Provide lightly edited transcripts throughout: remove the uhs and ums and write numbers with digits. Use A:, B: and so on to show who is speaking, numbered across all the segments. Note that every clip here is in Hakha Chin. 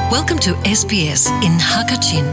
A: Welcome to SBS in Hakachin.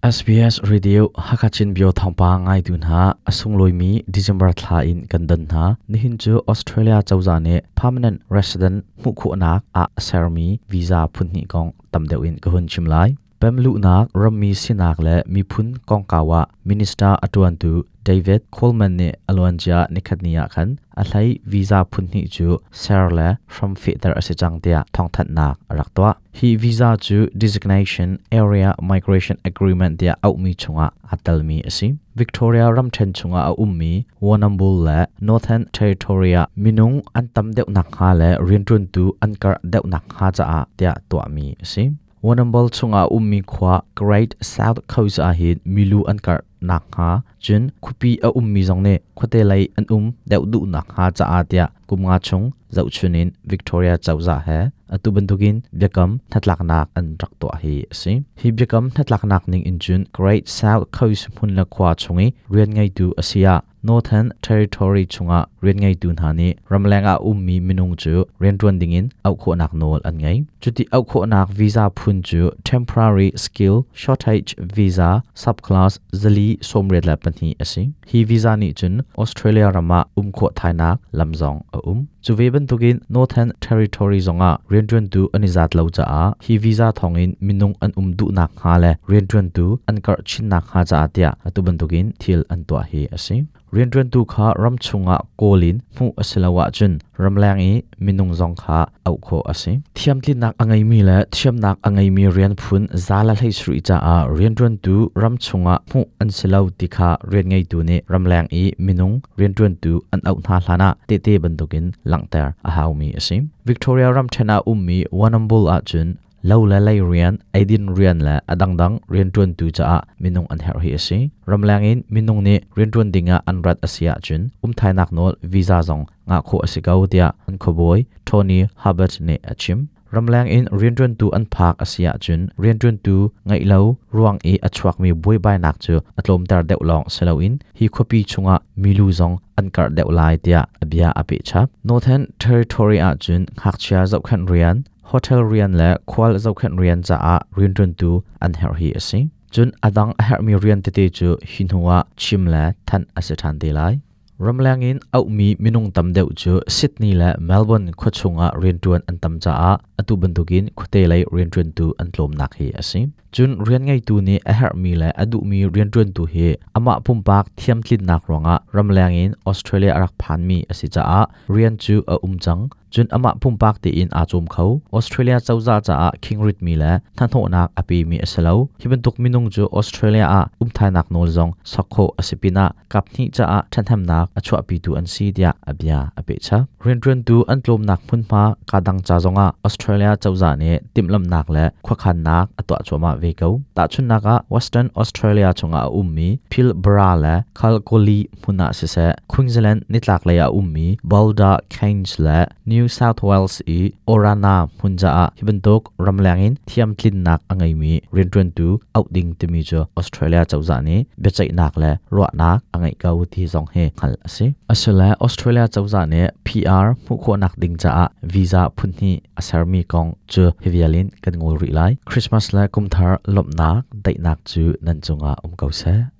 B: SBS Radio Hakachin Bio thawngpa ngaitu hna a sunglawi December thla in kan don hna. Nihin cu Australia cozah nih permanent resident hmuh khawhnak ah sermi visa phun hnih kong tam deuh in ka hun chim lai. Pemluhnak, rammi sinak le miphun kongkau ah minister a ṭuantu David Coleman nih a luancia nikhatni ah khan a hlei visa phun hnih cu ser le hram fehter a si cang tiah thawngthanhnak a rak tuah. Hi visa cu Designation Area Migration Agreement tiah auhmi chungah aa telmi a si. Victoria ramṭhen chungah a ummi Warrnambool le Northern Territory ah minung an tam deuh nakhnga le rianṭuantu an karh deuh nakhnga caah tiah tuahmi a si. Warrnambool chungah a ummi khua Great South Coast ah hin milu an karh nakhnga cun khuapi a ummi zong nih khuate lei an um deuh duh nakhnga caah tiah kum nga chung zohchun in Victoria cozah he atu bantukin biakam hnatlaknak an rak tuah hi a si. Hi biakam hnatlaknak ning in cun Great South Coast hmun le khua chung i rian ngeitu a si ah Northern Territory chungah rian ngeitu hna nih ramleng ah ummi minung cu rianṭuan dingin auh khawhnak nawl an ngei. Cuti auh khawhnak visa phun cu Temporary Skill Shortage Visa Subclass 482 a si. Hi visa nih cun Australia ram ah um khawh thainak lam zong a um. Cu ve bantukin Northern Territory zongah rianṭuantu an i zat lo caah hi visa thawngin minung an um duhnak hnga le rianṭuantu an karh chinnak hnga caah tiah atu bantukin thil an tuah hi a si. Rianṭuantu kha ram chungah kawl in hmuh a si lo ahcun ramleng i minung zong kha auh khawh a si. Thiamtlinnak a ngeimi le thiamnak a ngeimi rian phun 117 caah rianṭuantu ram chungah hmuh an si lo ti kha rian ngeitu nih ramleng i minung rianṭuantu an auh hna hlanah tehte bantukin langhter a haumi a si. Victoria ramṭhen ah ummi Warrnambool ahcun lo le lei rian, eidin rian le a dangdang rianṭuantu caah minung an herh hi a si. Ramleng in minung nih rianṭuan dingah an rat a si ahcun umthainak nawl visa zong ngah khawh a si ko tiah an khuabawi Tony Hubbard nih a chim. Ramleng in rianṭuantu an phak a si ahcun rianṭuantu ngeih lo ruang i a chuakmi buaibainak cu a tlawmter deuh lawng si loin hi khuapi chungah milu zong an karh deuh lai tiah a bia a peh chap. Northern Territory ahcun ngakchia zohkhenh rian, hotel rian le khual zohkhenh rian caah rianṭuantu an herh hi a si. Cun a dang a herhmi rian tete cu hi hnu ah chim le thanh a si ṭhan te lai. Ramleng in auhmi minung tam deuh cu Sydney le Melbourne khuachung ah rianṭuan an tam caah atu bantukin khuate lei rianṭuantu an tlawmnak hi a si. Cun rian ngeitu nih a herhmi le a duhmi rianṭuantu hi amah pumpak thiamtlinnak ruangah ramleng in Australia a rak phanmi a si caah rian cu a um cang. Cun amah pumpak tein aa cawm kho. Australia cozah caah khingritmi le hnahnawhnak a pemi a si lo. Hi bantuk minung cu Australia ah umthainak nawl zong sok khawh a si pinah kaphnih caah ṭhathnemnak a chuahpitu an si tiah a bia a pehchap. Rianṭuantu an tlawmnak hmunhma kadang ca zongah Australia cozah nih timhlamhnak le khuakhannak a tuah cuahmah ve ko. Tahchunhnak ah Western Australia chungah a ummi Pilbara le Kalgoorlie hmun ah siseh Queensland nitlaklei ah a ummi Boulder Cairns le New South Wales i Orana hmun caah hi bantuk ramleng in thiamtlinnak a ngeimi rianṭuantu auh ding timi cu Australia cozah nih biaceihnak le ruahnak a ngeih ko ti zong hi hngalh a si. Asile Australia cozah nih PR hmuh khawhnak ding caah visa phunhnih a sermi kong cu hi vial in kan ngol rih lai. Christmas le kumthar lawmhnak daihnak cu nan cungah um ko seh.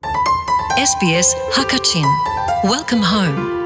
A: SBS Hakachin. Welcome home.